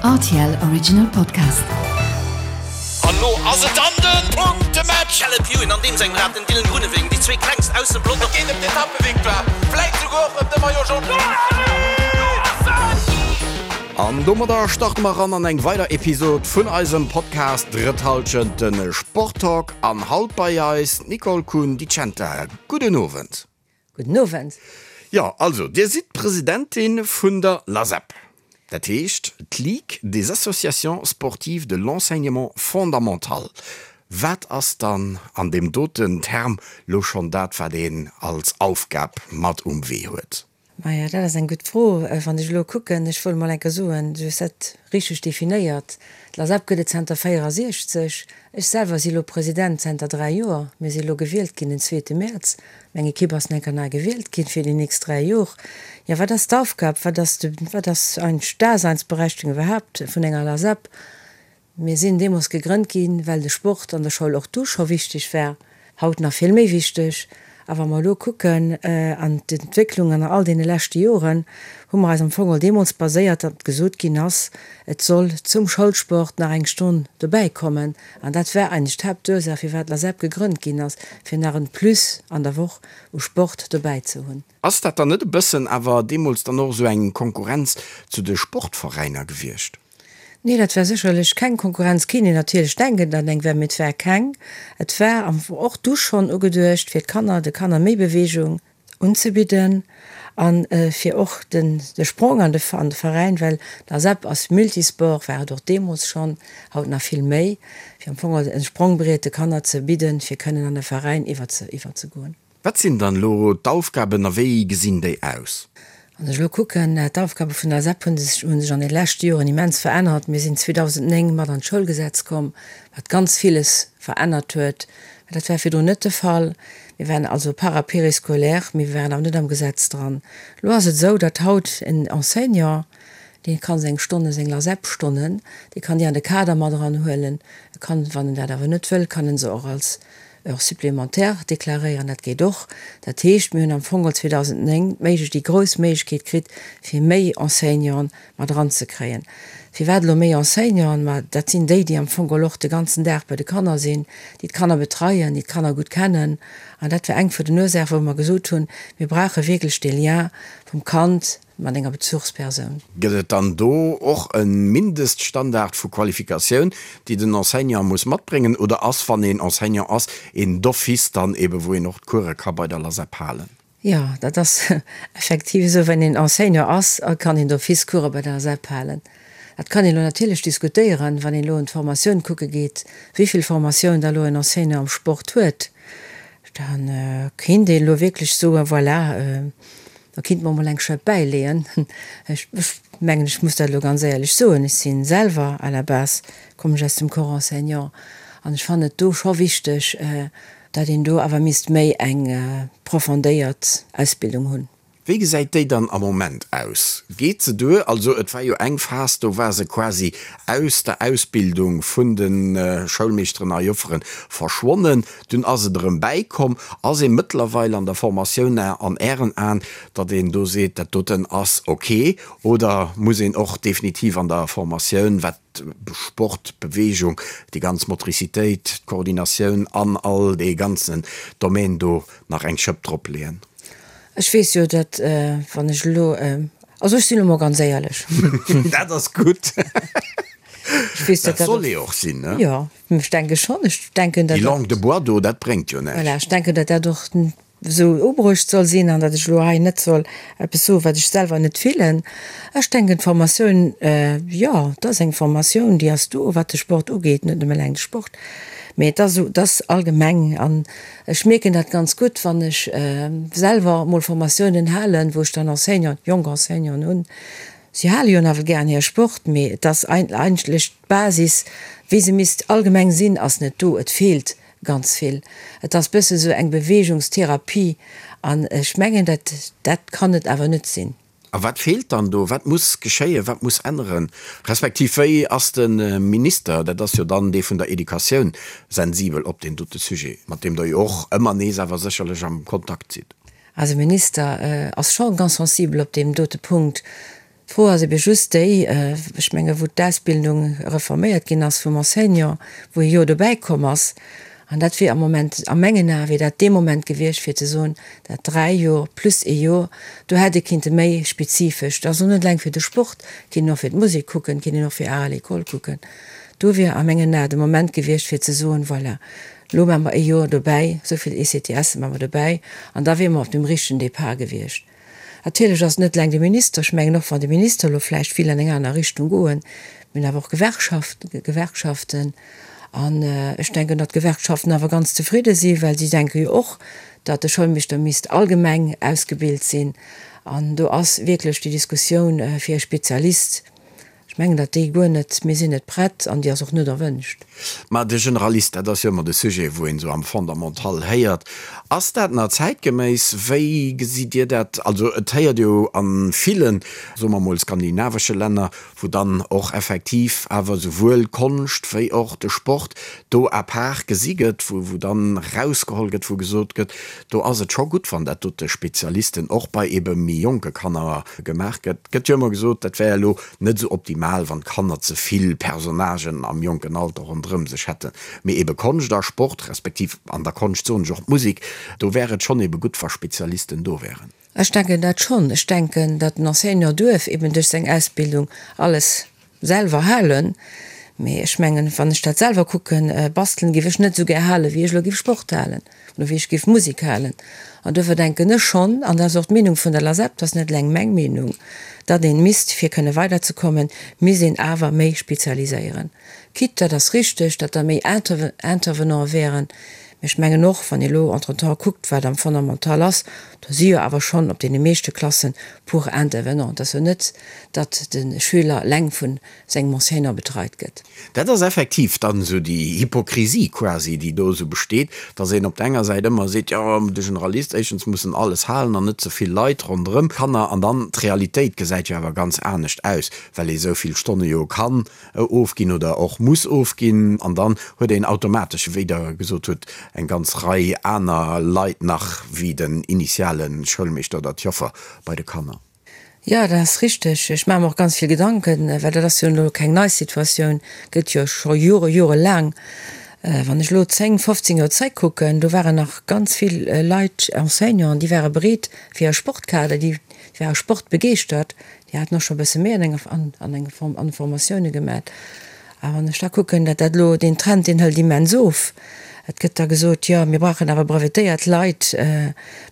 Rtl Original Podcast. An lo ass et dann den Punktematch! Caleb Ewan an deem sengem Rad, den Dylan Groenewegen, déi zwee klengst aus dem Pelotong. Et geet ëm d'Etappevictoire, vläit souguer och ëm de Maillot Jaune. An domadder starte mer eran an eng weider Episod vun eisem Podcast Drëtt Hallschent, de Sporttalk. An haut bei eis d'Nicole Kuhn-Di Centa. Gudden Owend. Gudden Owend. Jo, also Dir sidd d'Presidentin vun der LASEP, dat heescht d'Ligue des associations sportives de l'enseignement fondamental. Wat ass dann an deem doten Term lo schonn dat, wat een als Aufgab mat um Wee huet? Maja, dat ass eng gutt Fro. Wann ech elo kucken, ech wollt emol eng Kéier soen, du hues dat richteg definéiert, d'LASEP gëtt et zanter 64. Ech selwer si elo President zanter 3 Joer. Mir si elo gewielt ginn den zweete Mäerz. Meng Ekipp ass nach eng Kéier nei gewielt ginn fir déi nächst 3 Jor. Jo, wat ass d'Aufgab, wat ass de, wat ass eigentlech d'Daseinsberechtigung iwwerhaapt vun enger LASEP? Mir sinn deemools gegrënnt ginn, well de Sport an der Schoul och du scho wichteg war, haut nach vill méi wichteg. A wa mer elo kucken an d'Entwécklung an all deene leschte Joren, hu mer eis am Fong och deemools baséiert, datt gesot ginn ass, et soll zum Schoulsport nach eng Stonn dobäi kommen. An dat war eigentlech d'Haaptursaach, firwat d'LASEP gegrënnt ginn ass, fir nach en Plus an der Woch u Sport dobäi ze hunn. Ass dat dann net e bëssen awer deemools dann och esou eng Konkurrenz zu de Sportveräiner gewiescht? Nee, dat war sécherlech keng Konkurrenz. Kéint een natierlech denken, datt eng war, mee et war keng. Et war am Fong och du schonn ugeduecht, fir d'Kanner, de Kanner méi Beweegung unzebidden a fir och den de Sprong an de an de Veräin, well d'ASEP ass Multisport, war et och deemools schonn, haut nach vill méi, fir am Fong e Sprongbriet de Kanner ze bidden, fir kënnen an de Veräin iwwer ze iwwerzegoen. Wat sinn dann elo d'Aufgaben a wéi gesinn déi aus? Wann ech elo kucken, d'Aufgabe vun der SEP hu sech hu sech an de leschte Joren immens verännert. Mir sinn 2009 mat an d'Schoulgesetz komm, wat ganz villes verännert huet. Dat war virdrun net de Fall. Mir waren also para-périscolaire, mee mir waren awer net am Gesetz dran. Elo ass et esou, datt haut en Enseignant, dee ka seng Stonnen, seng LASEP-Stonnen, dee kann déi an de Kader mat eranhuelen. E kann, wann en dat awer net wëll, kann en se och als Heures supplémentaires deklaréieren, dat geet och. Dat heescht, mir hunn am Fong geholl 2009 d'Méiglech, déi grouss Méiglechkeet kritt, fir méi Enseignanten mat eranzekréien. Firwat elo méi Enseignanten? Ma dat sinn déi, déi am Fong geholl och de ganzen Dag bei de Kanner sinn, déi d'Kanner betreien, déi d'Kanner gutt kennen. An dat war eng vun den Ursaachen, wou mer gesot hunn, mir brauche wierklech dee Lien vum Kand mat enger Bezuchspersoun. Gëtt et dann do och e Mindeststandard vu Qualifikatioun, déi den Enseignant muss matbréngen, oder ass, wann een Enseignant ass, een d'office dann ebe wou een och d'Course ka bei der LASEP halen? Jo, dat ass effektiv esou. Wenn een Enseignant ass, kann een d'office Course bei der LASEP halen. Dat kann een elo natierlech diskutéieren, wann een elo un d'Formatioun kucke geet, wéi vill Formatioun da elo en Enseignant am Sport huet. Da kéint een elo wierklech soen, voilà, Da kinnt mer mol eng Schëpp bäileeën. Ech mengen, ech muss dat elo ganz éierlech soen, ech si selwer à la base kommen ech aus dem Corps enseignant an ech fannen et do scho wichteg, datt een do awer misst méi eng profondéiert Ausbildung hunn. Wéi gesäit déi dann am Moment aus? Geet se duer? Also et war jo eng Phas, do war se quasi aus der Ausbildung vun de Schoulmeeschteren a Jofferen verschwonnen. Dunn ass et erëm bäikomm. Ass ee mëttlerweil an der Formatioun an Ären Aen, datt een do seet, dat doten ass ok? Oder muss een och definitiv an der Formatioun, wat Sport, Beweegung, déi ganz Motricitéit, d'Koordinatioun an all dee ganzen Domaine do nach eng Schëpp dropleeën? Ech weess jo, datt wann ech elo, also ech sinn elo mol ganz éierlech. Dat ass gutt. Ech weess, datt dat soll ee och sinn, ne? Jo. Ech denke schonn. Ech denken, datt. Déi Langue de bois do, dat bréngt jo näischt. Voilà, ech denken, datt dat och esou ubruecht soll sinn an datt ech elo hei net soll eppes soen, wat ech selwer net fillen. Ech denken, d'Formatioun, jo, et ass eng Formatioun, déi ass do, wat de Sport ugeet, net nëmme eleng de Sport, mee et ass esou, et ass allgemeng. An ech mierken dat ganz gutt, wann ech selwer emol Formatiounen halen, wou ech dann Enseignanten, jonk Enseignanten hunn, Si hale jo nawell gären hire Sport, mee et ass eigentlech d'Basis, wéi se misst allgemeng sinn, ass net do. Et feelt ganz vill. Et ass bësse sou eng Beweegungstherapie an ech mengen, dat dat kann et awer net sinn. A wat feelt dann do? Wat muss geschéien? Wat muss änneren? Respektiv wéi ass de Minister, dat ass jo dann dee vun der Educatioun, sensibel op deen dote Sujet, mat deem Der jo och ëmmer nees awer sécherlech am Kontakt sidd? Eise Minister ass scho ganz sensibel op deem dote Punkt. D'Fro ass ebe just déi, ech menge wou d'Ausbildung reforméiert ginn ass vum Enseignant, wou ee Joer dobäi komm ass, an dat wier am Moment, a mengen Ae wier dat dee Moment gewiescht fir ze soen, dat 3 Joer plus ee Joer, do hätt ee kinnte méi spezifesch, dat ass och net eleng fir de Sport, kinnt een och fir d'Musek kucken, kinnt een och fir Art à l'école kucken, do wier a mengen Ae de Moment gewiescht fir ze soen, voilà, elo maache mer ee Joer dobäi, esou vill ECTSe maache mer dobäi, an da wiere mer op dem richtegen Départ gewiescht. Natierlech ass et net eleng de Minister. Ech mengen, och wann de Minister elo vläicht vill an eng aner Richtung goen, mir hunn awer och Gewerkschaften. An ech denken, datt d'Gewerkschaften awer ganz zefridde sinn, well si denke jo och, datt de Schoulmeeschter misst allgemeng ausgebilt sinn. An do ass wierklech déi Diskussioun fir e Spezialist, Ech mengen, datt déi guer net, mir sinn net prett an déi ass och net erwënscht. Mä de Generalist, dat ass jo ëmmer de Sujet, wou een esou am Fondamental héiert. Ass dat nach zäitgeméiss? Wéi gesitt Dir dat? Also et héiert jo a villen, soe mer emol, skandinavesche Länner, wou dann och effektiv awer esouwuel d'Konscht wéi och de Sport do à part gesi gëtt, wou wou dann erausgeholl gëtt, wou gesot gëtt, do ass et scho gutt, wann dat dote Spezialisten och bei ebe méi jonke Kanner gemaach gëtt. Gëtt jo ëmmer gesot, dat wär elo net esou optimal, wann d'Kanner ze vill Personnagen am jonken Alter ronderëm sech hätten. Mee ebe Konscht a Sport, respektiv an der Konscht soen ech och d'Musek, do wär et schonn ebe gutt, wa Spezialisten do wären. Ech denken dat schonn. Ech denken, datt den Enseignant duerf eben duerch seng Ausbildung alles selwer halen. Mee ech mengen, wann ech dat selwer kucken, bastelen géif ech net esou gär halen, wéi ech elo géif Sport halen oder wéi ech géif Musek halen. An duerfir denken ech schonn, an dat ass och d'Meenung vun der LASEP, dat ass net eleng meng Meenung, datt een misst, fir kënne weiderzekommen, misst een awer méi spezialiséieren. Quitte, dat ass richteg, datt da méi Intervenante wären, mee ech mengen och, wann ee elo entretemps kuckt, wat am Fondamental ass, do si jo awer schonn op deene meeschte Klassen puer Intervenants. Et ass jo net, datt de Schüler eleng vu sengem Enseignant betreit gëtt. Dat ass effektiv dann esou déi Hypokrisie quasi, déi do esou besteet, dass een op der enger Säit ëmmer seet, jo, de Generalist, éischtens muss en alles halen an net ze vill Leit ronderëm Kanner, an dann d'Realitéit gesäit jo awer ganz anescht aus, well ee sou vill Stonne jo kann ofginn oder och muss ofginn, an dann huet een automatesch, wéi Der gesot hutt, eng ganz Rei aner Leit nach wéi den initiale Schoulmeeschter oder d'Joffer bei de Kanner. Jo, dat ass richteg. Ech maache mer och ganz vill Gedanken, well dat ass jo elo keng nei Situatioun, gëtt jo scho Jore, jorelaang. Wann ech elo 10, 15 Joer zréckkucken, do waren nach ganz vill Leit, Enseignanten, déi ware bereet fir e Sportkader, déi ware sportbegeeschtert, déi haten och scho e bësse méi an enger, an enger Form, an Formatioune gemat. A wann ech da kucken, datt dat elo, deen Trend, deen hëlt immens of. Et gëtt da gesot, jo, mir brauchen awer brevetéiert Leit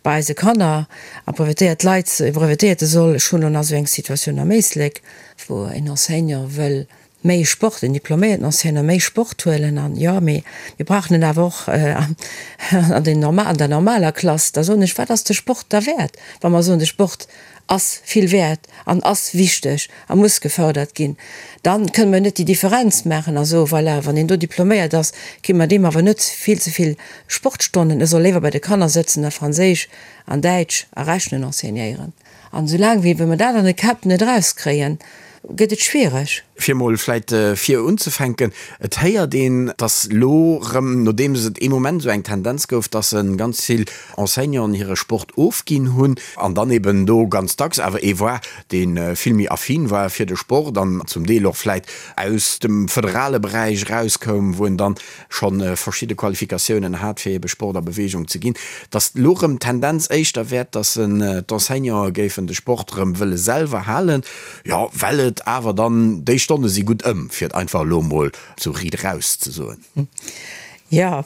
bei eise Kanner. A brevetéiert Leit, e Brevetéierte soll, ech hunn elo nach esou eng Situatioun am Éislek, wou en Enseignant wëll méi Sport, en diploméierten Enseignant méi Sport huelen an, jo, mee mir brauchen en awer och an den norma, an der normaler Klass. Da soen ech, wat ass de Sport da wäert, wa mer soen, de Sport ass vill wäert an ass wichteg a muss gefördert ginn, dann kënnen mer net déi Differenz maachen a soen, voilà, wann een do diploméiert ass, gi mer deem awer net vill ze vill Sportstonnen, e soll léiwer bei de Kanner sëtzen a Franséisch an Däitsch a Rechnen enseignéieren. An esoulaang wéi mer dat an de Käpp net erauskréien, gëtt et schwiereg. Fir emol vläit vir unzefänken, Et héiert een, dass elo erëm, nodeems et ee Moment esou eng Tendenz gouf, dass ganz vill Enseignanten hire Sport ofginn hunn an dann eben do ganz dacks awer ee war, dee vill méi affin war fir de Sport an zum Deel och vläit aus dem föderale Beräich erauskoum, wou en dann scho verschidde Qualifikatiounen hat, fir ebe Sport a Bewegung ze ginn, dass elo erëm d'Tendenz éischter wäert, dass d'Enseignanten géifen de Sport erëm wëlle selwer halen. Jo, well et awer dann, déi Stonne si gutt ëm, fir et einfach elo emol sou riit eraus ze soen. Jo,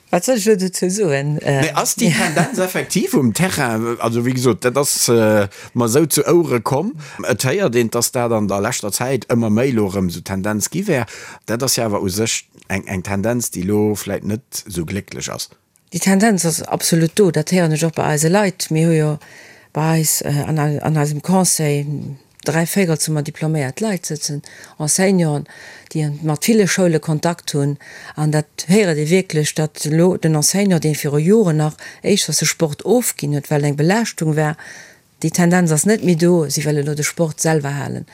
wat soll ech elo dozou soen? Mee ass déi Tendenz effektiv um Terrain? Also, wéi gesot, dat ass mer esou zu Ouere komm. Et héiert een, dass dat an der leschter Zäit ëmmer méi elo erëm esou d'Tendenz gi wär. Dat ass jo awer u sech eng Tendenz, déi elo vläit net esou glécklech ass. Déi Tendenz ass absolut do, dat héieren ech och bei eise Leit. Mir hu jo bei eis an eisem Conseil dräivéierels hu mer diploméiert Leit sëtzen, Enseignanten, déi mat ville Schoule Kontakt hunn. An dat héiert ee wierklech, datt elo den Enseignant, dee viru Joren nach éischters de Sport ofginn huet, well et eng Belaaschtung war, déi Tendenz ass net méi do, si wëlle elo de Sport selwer halen.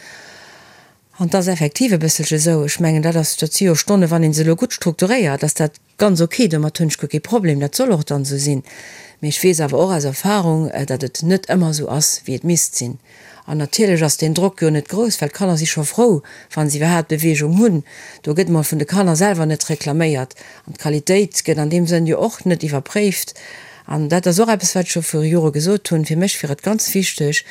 An 't ass effektiv e bësselche esou, ech mengen, dat ass, dat si jo Stonnen, wann ee se elo gutt strukturéiert, ass dat ganz ok, domat hunn ech guer kee Problem, dat soll och dann esou sinn. Mee ech weess awer och aus Erfahrung, datt et net ëmmer esou ass, wéi et misst sinn. An natierlech ass deen Drock jo net grouss, well d'Kanner si scho frou, wa se iwwerhaapt Beweegung hunn. Do gëtt mol vun de Kanner selwer net reklaméiert. An d'Qualitéit gëtt an deem Sënn jo och net iwwerpréift. An dat ass och eppes, wat ech scho viru Jore gesot hunn, Fir mech wier et ganz wichteg,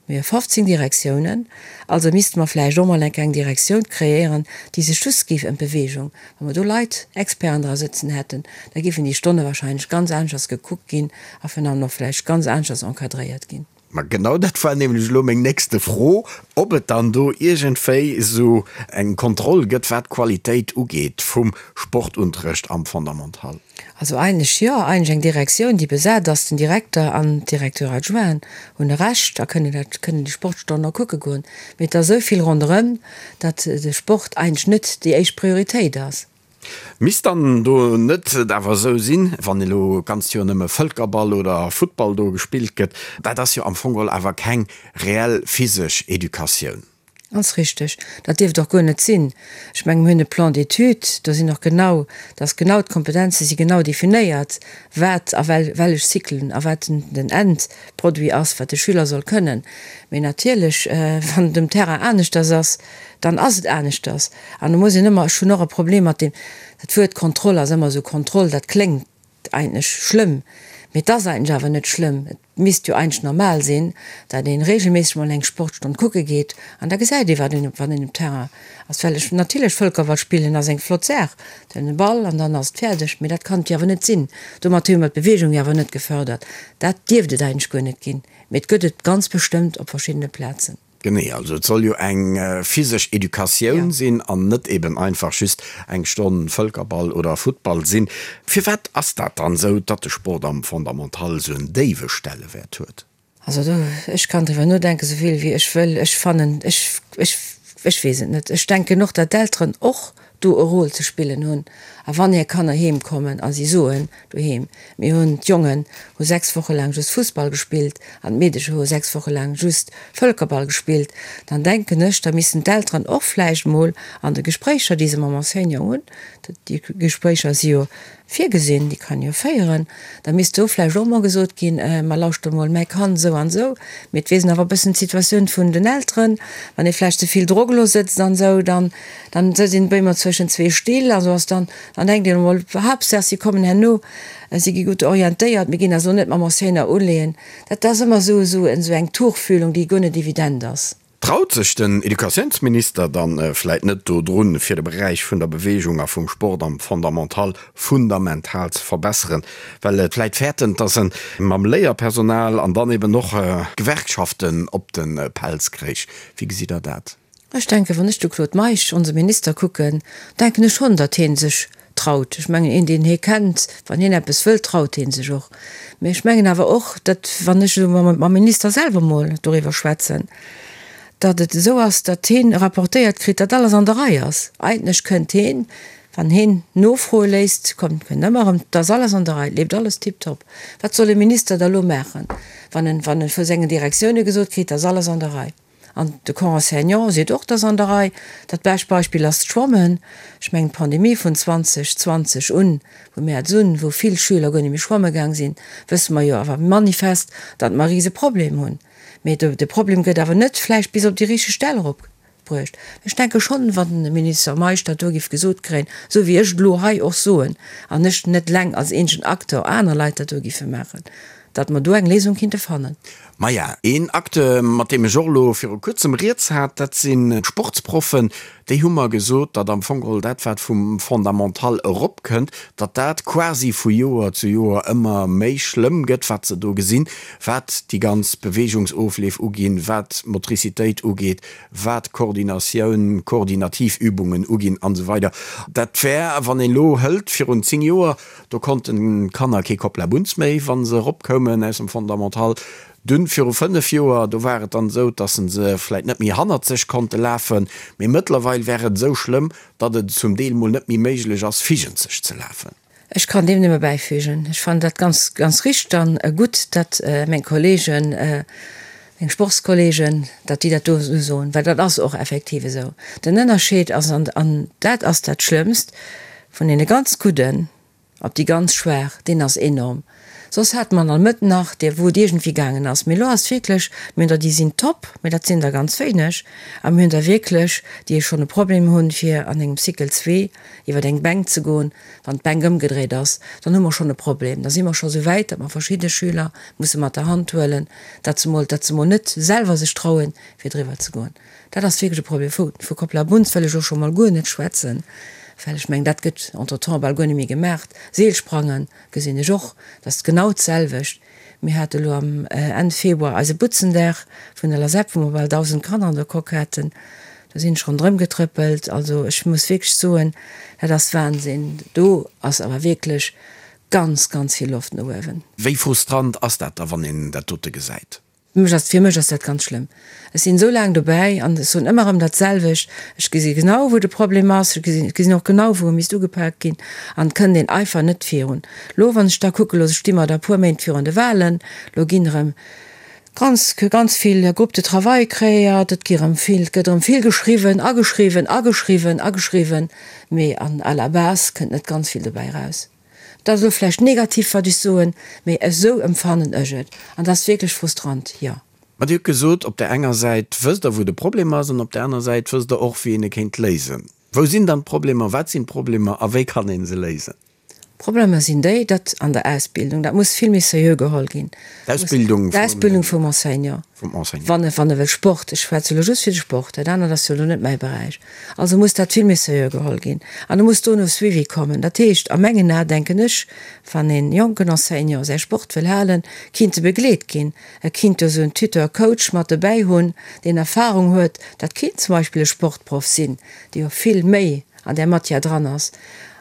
mir hu 15 Direktiounen, also misste mer vläicht och mol eng kleng Direktioun kreéieren, déi sech just géif ëm d'Beweegung, wa mer do Leit, Experten dra sëtzen hätten, da géifen déi Stonne wahrscheinlech ganz aneschters gekuckt ginn a virun allem och vläicht ganz aneschters encadréiert ginn. Ma genau dat war nämlech elo meng nächste Fro, ob et dann do iergendwéi esou eng Kontroll gëtt, wat d'Qualitéit ugeet vum Sportunterrecht am Fondamental. Also eigentlech jo, eigentlech eng Direktioun, déi besat ass. Den Direkter an d'Directeur adjointen hunn e Recht a kënnen dat, kënnen déi Sportstonnen och kucke goen. Mee et ass esou vill ronderëm, datt de Sport eigentlech net déi éischt Prioritéit ass. Misst dann do net et awer esou sinn, wann elo d'ganzt Joer nëmme Vëlkerball oder Futtball do gespillt gëtt, dat ass jo am Fong geholl awer keng reell physesch Educatioun. Ganz richteg. Dat dierft och guer net sinn. Ech mengen, mir hunn e Plan d'études, do sinn och genau, da ass genau, d'Kompetenze si genau definéiert, wat a wellech Cyclen a wat den Endproduit ass, wat de Schüler soll kënnen. Mee natierlech, wann et um Terrain aneschters ass, dann ass et aneschters. An do muss een ëmmer, ech hunn och e Problem mat deem, dat Wuert Kontroll ass ëmmer esou, Kontroll, dat kléngt eigentlech schlëmm, mee et ass eigentlech awer net schlëmm. Et misst jo eigentlech normal sinn, datt ee regelméisseg mol eng Sportstonn kucke geet an da gesäit ee wat een, wann een um Terrain ass. Well ech, natierlech Vëlkerball spillen ass eng flott Saach, den Ball an dann ass et fäerdeg, mee dat kann et jo awer net sinn. Domat hu mer d'Beweegung jo awer net gefördert. Dat dierft et eigentlech guer net ginn, mee et gëtt et ganz bestëmmt op verschiddene Plazen. Genee, also et soll jo eng physesch Educatioun sinn an net eben einfach just eng Stonn Vëlkerball oder Futtball sinn. Firwat ass dat dann esou, datt de Sport am Fondamental esou en déiwe Stellewäert huet? Also do, ech kann driwwer nodenken, esou vill wéi ech wëll, ech fannen, ech, ech, ech weess et net. Ech denken och, datt d'Elteren och do e Rôle ze spillen hunn. A wann hir Kanner heem kommen a si soen doheem, mir hunn, d'Jongen hu 6 Woche laang just Fussball gespillt an d'Meedecher hu 6 Woche laang just Vëlkerball gespillt, dann denken ech, da missten d'Elteren och vläicht mol an de Gespréicher, déi se mam Enseignant hunn, déi Gespréicher si jo virgesinn, déi kann ee jo féieren, da misst do vläicht och mol gesot ginn, Ma lauschter mol, mäi Kand esou an esou, mee et weess een awer e bëssen d'Situatioun vun den Elteren, wann ee vläicht ze vill Drock elo sëtzt an esou, dann, dann sëtzt een op eemol zwëschen zwee Still a sou ass dann, dann denkt een emol, Haaptsaach si kommen herno, si gi gutt orientéiert, mir ginn eis elo net mam Enseignant uleeën. Dat ass ëmmer esou, esou eng Tuchfühlung, déi guer net evident ass. Traut sech den Educatiounsminister dann vläit net do drun, fir de Beräich vun der Bewegung a vum Sport am Fondamental fundamental ze verbesseren, well et vläit fäerten, dass en mam Léierpersonal an dann eben och d'Gewerkschaften op de Pelz kréich? Wéi gesitt Der dat? Ech denken, wann ech de Claude Meisch, onse Minister, kucken, denken ech schonn, datt hie sech traut. Ech mengen, een, deen hie kennt, wann hien eppes wëllt, traut hie sech och. Mee ech mengen awer och, datt, wann ech elo mam Minister selwer mol doriwwer schwätzen, datt et esou ass, datt hien rapportéiert kritt, datt alles an der Rei ass. Eigentlech kënnt hien, wann hien nofroe léisst, kommt, kënnt ëmmer erëm, 't ass alles an der Rei, et leeft alles tiptop. Wat soll e Minister da elo maachen, wann en, wann e vu sengen Direktioune gesot kritt, 't ass alles an der Rei? An de Corps enseignant seet och, 't ass an der Rei. Dat bescht Beispill ass d'Schwammen. Ech mengen, d'Pandemie vun 2020 un, vu Mäerz un, wou vill Schüler guer net méi schwamme gaang sinn, wësse mer jo awer manifest, datt mer e rise Problem hunn. Mee de Problem gëtt awer net vläicht bis op déi richteg Stell eropbruecht. Ech denke schonn, wann de Minister Meisch dat do géif gesot kréien, esou wéi ech et elo hei och soen, an ech net eleng als eenzegen Acteur, aner Leit dat do géife maachen, datt mer do eng Léisung kinnte fannen. Maja, een Acteur, mat deem ech och elo viru kuerzem rieds hat, dat sinn d'Sportsproffen. Déi hu mer gesot, datt am Fong geholl dat, wat vum Fondamental eropkënnt, datt dat quasi vu Joer zu Joer ëmmer méi schlëmm gëtt, wat se do gesinn, wat déi ganz Beweegungsofleef uginn, wat d'Motricitéit ugeet, wat d'Koordinatioun, koordinativ Übungen uginn an esou weider. Dat wär, wann een elo hëlt virun 10 Joer, Do konnten d'Kanner kee Koplabunz méi, wa se eropkoumen aus dem Fondamental. Dunn, viru 5 Joer, do war et dann esou, dass se vläit net méi hannert sech konnte lafen, mee mëttlerweil wär et esou schlëmm, datt et zum Deel mol net méi méiglech ass, vigent sech ze lafen. Ech kann deem nëmme bäifügen. Ech fannen dat ganz, ganz richteg an gutt, datt meng Kollegen, meng Sportskollegen, datt déi dat do esou soen, well dat ass och effektiv esou. Den Ënnerscheed ass, an dat ass dat Schlëmmst, Vun deene ganz Gudden op déi ganz Schwaach, deen ass enorm. Soss hate mer an der Mëtt nach déi, wou et iergendwéi gaangen ass. Mee elo ass wierklech, mir hunn der, déi sinn top, mee dat sinn der ganz wéineg. A mir hunn der wierklech, déi schonn e Problem hunn, fir an engem Cycle zwee iwwer eng Bänk ze goen. Wann d'Bänk ëmgedréit ass, dann hu mer schonn e Problem. Da si mer scho sou wäit, datt mer verschidde Schüler musse mat der Hand huelen, datt se mol, datt se mol net selwer sech trauen, fir driwwer ze goen. Dat ass wierklech e Problem. Vu, vu Koplabunz wëll ech elo scho mol guer net schwätzen, well ech mengen, dat gëtt entretemps bal guer net méi gemaacht. Seelsprangen gesinn ech och, dat ass genau d'selwecht. Mir hate elo am Enn Februar eise Butzendag vun der LASEP, wou mer bal 1.000 Kanner an der Coque haten. Do sinn ech ronderëm getrëppelt. Also ech muss wierklech soen, dat ass Wahnsinn. Do ass awer wierklech ganz, ganz vill Loft no uewen. Wéi frustrant ass dat da, wann een dat dote gesäit? Mech ass, fir mech ass dat ganz schlëmm. Ech sinn esou laang dobäi an ech soen ëmmer erëm dat selwecht. Ech gesi genau, wou de Problem ass. Ech gesinn, ech gesinn och genau, wou e misst ugepaakt ginn. An et kënnt een einfach net virun. Lo, wann ech da kucke, lo sti mer da e puer Méint virun de Wahlen, lo ginn erëm ganz, ganz vill Groupes de travail kreéiert, et gi erëm vill, et gëtt erëm vill geschriwwen a geschriwwen a geschriwwen a geschriwwen, mee an à la base kënnt net ganz vill dobäi eraus. Dat ass elo vläicht negativ, wat ech soen, mee esou emfannen ech et. An dat ass wierklech frustrant, jo. Ma Dir hutt gesot, op där enger Säit wësst Der, wou de Problem ass, an op där aner Säit wësst Der och, wéi een e kéint léisen. Wou sinn dann d'Problemer, wat sinn d'Problemer a wéi kann ee se léisen? D'Problemer sinn déi, datt an der Ausbildung, dat muss vill méi seriö geholl ginn, D'Ausbildung d'Ausbildung vum Enseignant, vum Enseignant. Wann e, wann e wëll Sport, ech schwätze elo just fir de Sport, dat anert ass jo elo net mäi Beräich, also muss dat vill méi seriö geholl ginn an do muss dono Suivi kommen. Dat heescht, a mengen Ae denken ech, wann e jonken Enseignant säi Sport wëll halen, kinnt e begleet ginn, e kinnt do esou en Tuteur, Coach mat dobäi hunn, deen Erfahrung huet, dat kinnt zum Beispill e Sportproff sinn, dee jo vill méi an där Matière dran ass.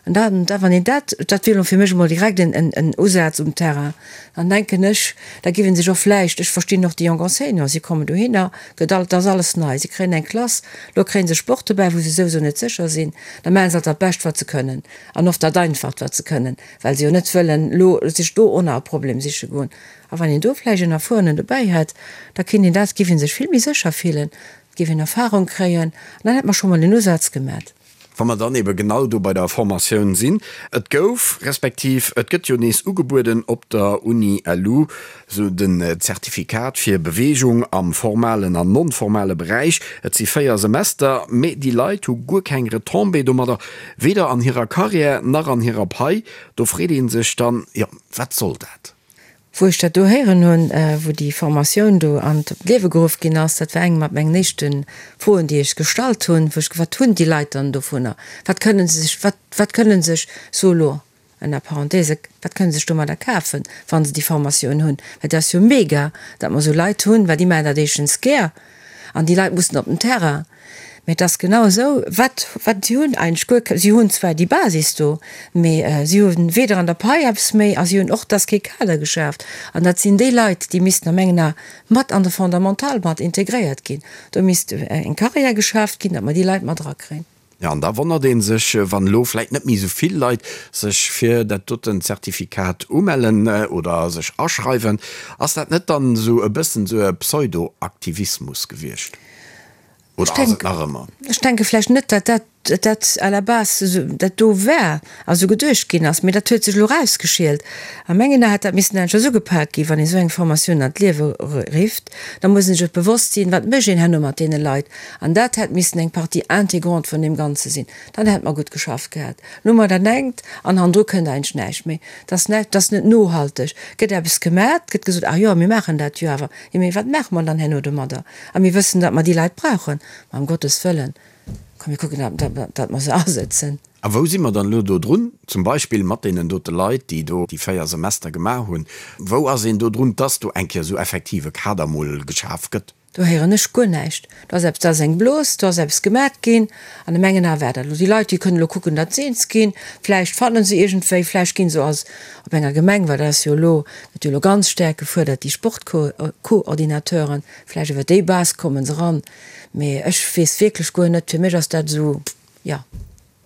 An dann, da wann een dat, dat wier elo fir mech emol direkt en, en, en Usaz um Terrain, dann denken ech, da giff ee sech och vläicht, ech verstinn och déi jonk Enseignants, si kommen dohinner, gëtt all, et ass alles nei, si kréien eng Klass, elo kréie se Sport dobäi, wou se souwisou net sécher sinn, da maache se alt dat Bescht, wat se kënnen an oft dat Einfacht, wat se kënnen, well se jo net wëllen elo sech do och nach e Problem siche goen. A wann een do vläicht en Erfuerenen dobäi hätt, da kéint een dat, giff ee sech vill méi sécher fillen, giff een Erfahrung kréien an dann hätt mer scho mol en Usaz gemat. Wa mer dann ebe genau do bei der Formatioun sinn, Et gouf, respektiv et gëtt jo nees ugebueden op der Uni LU esou den Zertifikat fir Beweegung am formalen an non-formale Beräich. Et si 4 Semester, mee déi Leit hu guer keng Retombée domadder, weder an hirer Carrière nach an hirer Pai. Do freet ee sech dann, jo, wat soll dat? Wou ech dat do héieren hunn, wou déi Formatioun do an d'Liewe geruff ginn ass, dat war eng mat mengen éischte Froen, déi ech gestallt hunn, wou ech ge, wat hunn déi Leit dann dovunner? Wat kënnen se sech, wat, wat kënnen sech, so elo ënner Parenthèse, wat kënnen se sech domadder kafen, wa se déi Formatioun hunn? Well dat ass jo mega, datt mer esou Leit hunn, well déi maachen dat éischtens gär an déi Leit mussen op den Terrain. Mee et ass genau esou, wat, wat, si hunn eigentlech guer ke, si hunn zwar déi Basis do, mee si hu weder an der Pai eppes méi a si hunn och, et ass kee Kader geschaaft. An dat sinn déi Leit, déi missten a mengen Ae mat an de Fondamental mat integréiert ginn. Do misst eng Carrière geschaaft ginn, datt mer déi Leit mat erakréien. Jo, an da wonnert ee sech, wann elo vläit net méi esou vill Leit sech fir dat doten Zertifikat umellen oder sech aschreiwen. Ass dat net dann esou e bëssen esou e Pseudo-Aktivismus gewiescht? Oder ass et nach ëmmer? Ech denke vläicht net, datt dat, dat à la base esou dat do war a sou geduecht ginn ass, mee dat huet sech elo erausgeschielt. A mengen Ae hätt dat missen aneschters ugepak ginn. Wann ee sou eng Formatioun an d'Liewe rifft, da muss een sech och bewosst sinn, wat mécht een herno mat deene Leit. An dat hätt missen eng Partie intégrante vun deem Ganze sinn. Dann hätt mer gutt geschafft gehat. Elo hu mer dat engt an hannendru kënnt eigentlech näischt méi. Dat ass näischt, dat ass net nohalteg. Gëtt eppes gemat, gëtt gesot, ah jo, mir maachen dat jo awer. Jo, mee wat maache mer dann herno domadder? A mir wëssen, datt mer déi Leit brauchen. Ma ëm Gottes Wëllen, komm mir kucken, datt mer se asëtzen. A wou si mer dann elo do drun, zum Beispill mat deenen dote Leit, déi do déi 4 Semester gemaach hunn? Wou ass een do drun, dass do eng Kéier esou effektiv e Kader mol geschaf gëtt? Do héieren ech guer näischt. Do ass eppes, do ass eng Blos, do ass eppes gemat ginn. An a mengen Ae war dat elo. Déi Leit, déi kënnen elo kucken, datt se eens ginn. Vläicht fanne se iergendwéi, vläicht gi se als op enger Gemeng, well dat ass jo elo, gëtt jo elo ganz staark gefuerdert, déi Sportcoordinateuren, vläicht iwwer déi Base komme se eran, mee ech weess wierklech guer net, fir mech ass dat esou, jo.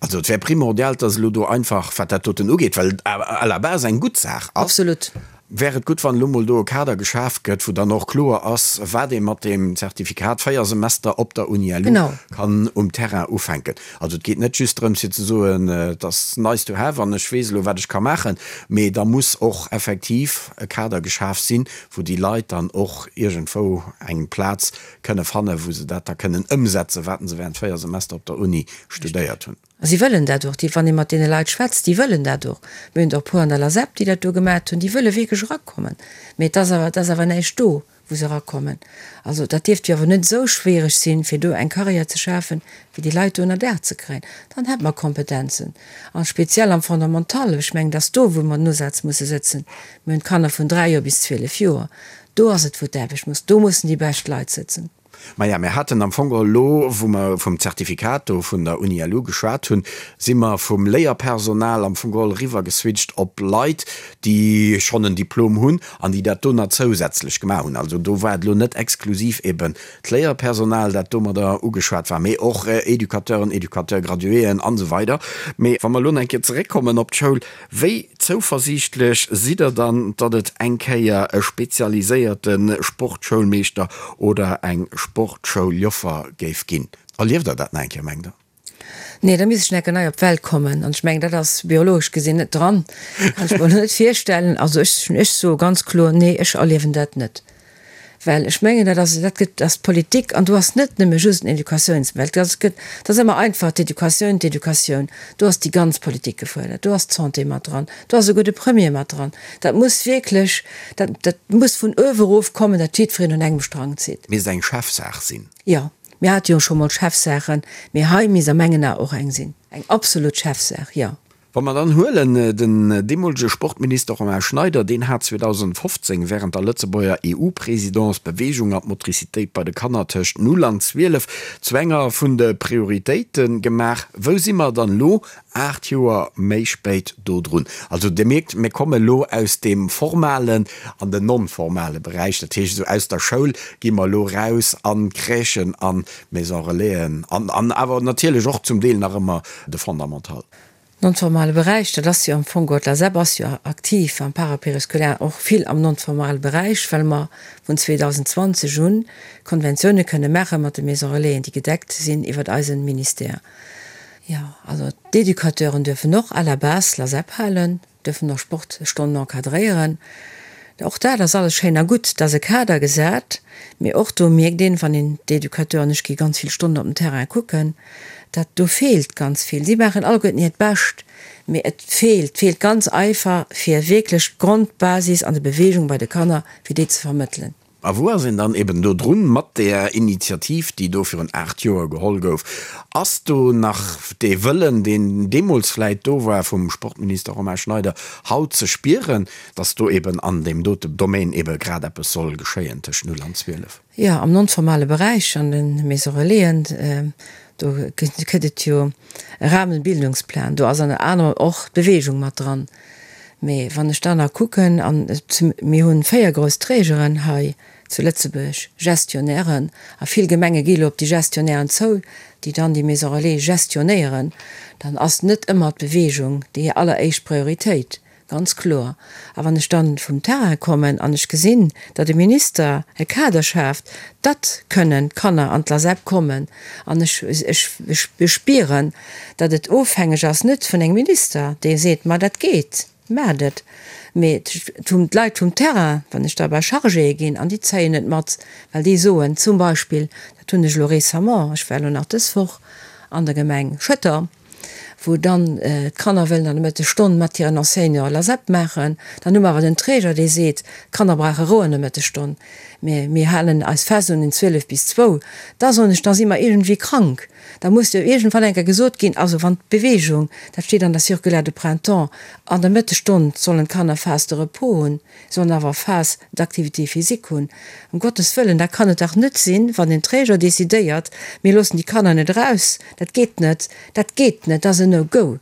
Also et wär primordial, dass elo do einfach, wat dat doten ugeet, well et à la base eng gutt Saach ass. Absolut. Wär et gutt, wann elo mol do e Kader geschaf gëtt, wou dann och kloer ass, wat ee mat deem Zertifikat, 4 Semester op der Uni-LU, kann um Terrain ufänken. Also et geet net just drëms, fir ze soen, et ass nice to have an ech weess elo, wat ech ka maachen, mee da muss och effektiv e Kader geschaf sinn, wou déi Leit dann och iergendwou eng Plaz kënne fannen, wou se dat da kënnen ëmsetzen, wat se während 4 Semester op der Uni studéiert hunn. A si wëllen dat och. Déi, wann ee mat deene Leit schwätzt, déi wëllen dat och. Mir hunn der e puer an der LASEP, déi dat do gemat hunn, déi wëlle wierklech erakommen. Mee et ass awer, et ass awer näischt do, wou se erakommen. Also dat dierft jo awer net esou schwiereg sinn, fir do eng Carrière ze schafen, fir déi Leit do ënner Daach ze kréien. Dann hätt mer Kompetenzen. A speziell am Fondamental, ech mengen, et ass do, wou mer den Usaz musse sëtzen. Mir hunn d'Kanner vun 3 Joer bis 12 Joer. Do ass et, wou d'Aarbecht muss, do mussen déi bescht Leit sëtzen. Maja, mir haten am Fong elo, wou mer vum Zertifikat do vun der Uni LU geschwat hunn, si mer vum Léierpersonal am Fong geholl eriwwer geswitcht op Leit, déi schonn en Diplom hunn an déi dat do nach zousätzlech gemaach hunn. Also do war et elo net exklusiv eben d'Léierpersonal, dat domadder ugeschwat war, mee och Educateuren, Educateur-graduéen an esou weider. Mee wa mer elo nach eng Kéier zeréckkommen op d'Schoul, Wéi zouversiichtlech sidd der dann, datt et eng Kéier e spezialiséierte Sportschoulmeeschter oder eng Sportschouljoffer géif ginn? Erlieft der dat nach eng Kéier, mengt der? Nee, da misst ech nach eng Kéier nei op d'Welt kommen. An ech mengen, dat ass biologesch gesinn net dran. Kann ech mer elo net virstellen. Also ech, ech soe ganz kloer, Nee, ech erliewen dat net. Well ech mengen, dat ass, dat gëtt, ass d'Politik an do ass net nëmme just den Educatiouns-, well dat gëtt, dat ass ëmmer einfach, d'Educatioun, d'Educatioun. Do ass déi ganz Politik gefuerdert, do ass d'Santé mat dran, do ass esouguer de Premier mat dran. Dat muss wierklech, dat, dat muss vun uewe erof kommen, datt jiddwereen un engem Strang zitt. Misst eng Chefsaach sinn. Jo, mir hate jo scho mol Chefsaachen, mee hei misst a mengen Ae och eng sinn, eng absolut Chefsaach, jo. Wa mer dann huelen, den deemolege Sportminister Romain Schneider, deen hat 2015 während der Lëtzebuerger EU-Présidence d'Beweegung an d'Motricitéit bei de Kanner tëscht 0 an 12 zu enger vun de Prioritéite gemaach. Wou si mer dann elo, 8 Joer méi spéit, do drun? Also Dir mierkt, mir komme elo aus deem formalen an den non-formale Beräich, dat heescht esou aus der Schoul gi mer elo raus an d'Crèchen an d'Maison-relaisen an awer natierlech och zum Deel nach ëmmer de Fondamental. Non-formale Beräich, dat ass jo am Fong, d'LASEP ass jo aktiv am Parapériscolaire, och vill am non-formale Beräich, well mer vun 2020 un Konventioune kënne maache mat de Maison Relaisen, déi gedeckt sinn iwwert eisen Ministère. Jo, also d'Educateuren duerfen och à la base LASEP halen. Dürfen och Sportstonnen encadréieren. Och dat ass alles schéin a gutt, et ass e Kader gesat, mee och do mierkt een, wann een d'Educateuren, ech gi ganz vill Stonnen op den Terrain kucken, dat do feelt ganz vill. Si maachen alleguerten hiert Bescht, mee et feelt, feelt ganz einfach, fir wierklech d'Grondbasis an der Beweegung bei de Kanner, fir déi ze vermëttelen. A wou ass een dann eben do drun mat där Initiativ, déi do virun 8 Joer geholl gouf? Ass do nach dee Wëllen, deen deemools vläit do war vum Sportminister Romain Schneider, haut ze spieren, datt do eben an deem dote Domaine ebe grad eppes soll geschéien tëscht 0 an 12? Jo, am non-formale Beräich, an de Maisons Relaisen, do gëtt et jo e Rahmenbildungsplan, do ass ënner anerem och d'Beweegung mat dran. Mee wann ech dann nach kucken, an mir hu 4 grouss Trägeren hei zu Lëtzebuerg, Gestionnairen, a vill Gemenge gi elo op déi Gestionnairen zou, déi dann déi Maison relais gestionnéieren, dann ass net ëmmer d'Beweegung déi alleréischt Prioritéit, ganz kloer. A wann ech dann vum Terrain kommen an ech gesinn, datt e Minister e Kader schaaft, datt kënnen d'Kanner an d'LASEP kommen, an ech, ech, ech spieren, datt et ofhängeg ass net vun engem Minister, dee seet, ma dat geet, maacht et, mee d'Leit vum Terrain, wann ech da bei Chargéë ginn, an déi zéien et mat, well déi soen zum Beispill, dat hunn ech elo récemment, ech war elo nach dës Woch an der Gemeng Schëtter, wou dann d'Kanner wëllen an der Mëttesstonn mat hiren Enseignanten LASEP maachen, dann hu mer awer den Träger, dee seet, d'Kanner brauche Rou an der Mëttesstonn, mä mir halen eis fest un den 12 bis zwou, da soen ech, da si mer iergendwéi krank. Da muss jo iergendwann eng Kéier gesot ginn, also wann d'Beweegung, dat steet an der Circulaire de printemps, an der Mëttesstonn sollen d'Kanner Phase de repos hunn, sollen awer Phase d'activité physique hunn. Ëm Gottes Wëllen, dat kann et dach net sinn, wann den Träger decidéiert, mir loossen déi Kanner net eraus, dat geet net, dat geet net, dat ass en No-Go.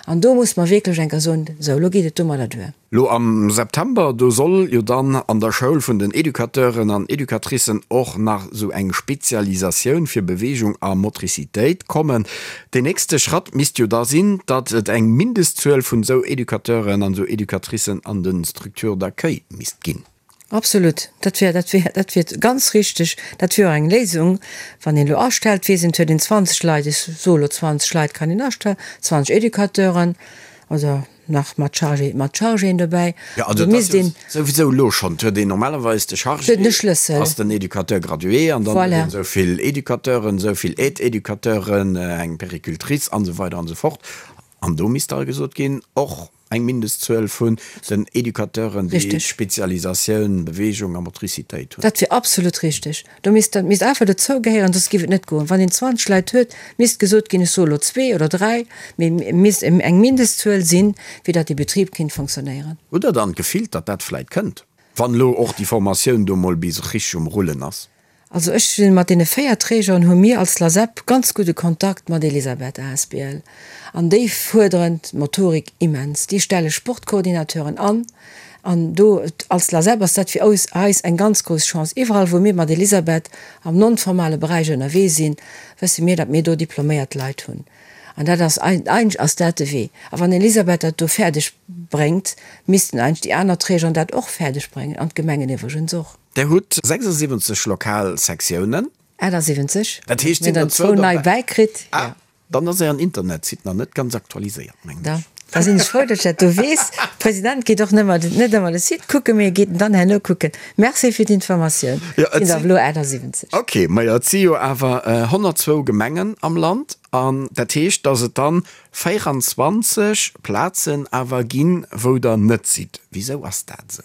An do muss mer wierklech eng Kéier soen, Sou, elo geet et domadder duer. Lo am September, do soll jo dann an der Schoul vun den Educateuren an Educatricen och nach sou eng Spezialisatioun fir Beweegung a Motricitéit kommen. Deen nächste Schratt misst jo da sinn, datt et eng Mindestzuel vun sou Educateuren an sou Educatricen an de Structures d'accueil misst ginn. Absolut, dat wär, dat wär, dat wier ganz richteg. Dat wier och eng Léisung, wann een elo astellt, weess een, et huet een 20 Leit, ech soe elo 20 Leit kann een astellen, 20 Educateuren oder nach mat Chargé, mat Chargéen dobäi. Jo, also et ass jo souwisou elo schonn, et huet een normalerweis de Chargé, ass den Educateur gradué an dann huet een esou vill Educateuren, esou vill Aide-Educateuren, eng Péricultrice an esou weider an esou fort. An do misst da gesot ginn, och eng Mindestzuel vun den Educateuren, déi d'Spezialisatioun Beweegung a Motricitéit hunn. Dat wier absolut richtig. Do misst, dat misst einfach dozou gehéieren, soss géif et net goen. Wann een 20 Leit huet, misst gesot ginn, ech soe elo zwee oder dräi, mee et misst eng Mindestzuel sinn, fir datt dee Betrib kinnt fonctionnéieren. Hutt Der dann d'Gefill, datt dat vläit kënnt, wann elo och déi Formatioun do mol bis richtig um Rullen ass? Also ech sinn mat deene 4 Trägeren hu mir als LASEP ganz gudde Kontakt mat Elisabeth asbl an déi fuerderen d'Motorik immens. Déi stelle Sportcoordinateuren an an do als LASEP ass dat fir eis eng ganz grouss Chance. Iwwerall wou mir mat Elisabeth am non-formale Beräich ënnerwee sinn, wësse mir, datt mir do diploméiert Leit hunn an dat ass eigentlech ass dat de Wee. A wann Elisabeth dat do fäerdeg bréngt, missten eigentlech déi aner Trägeren dat och fäerdeg bréngen an d'Gemengen iwwregens och. Der hutt 76 lokal Sektiounen. 78. Dat heescht, Mir sinn hunn der zwou zwou nei derbäi. bäikritt. Ah, dann ass Ären Internetsite nach net ganz aktualiséiert, mengen Da, ech. da sinn ech frou, datt ech dat do weess. De President geet och nëmmer, net ëmmer de Site kucken, mee e geet en dann herno kucken. Merci fir d'Informatioun. Jo, et Sinn der sinn. elo 78. Ok, majo, et si jo awer 102 Gemengen am Land an dat heescht, datt et dann 24 Plazen awer ginn, wou Der net sidd. Wisou ass dat esou?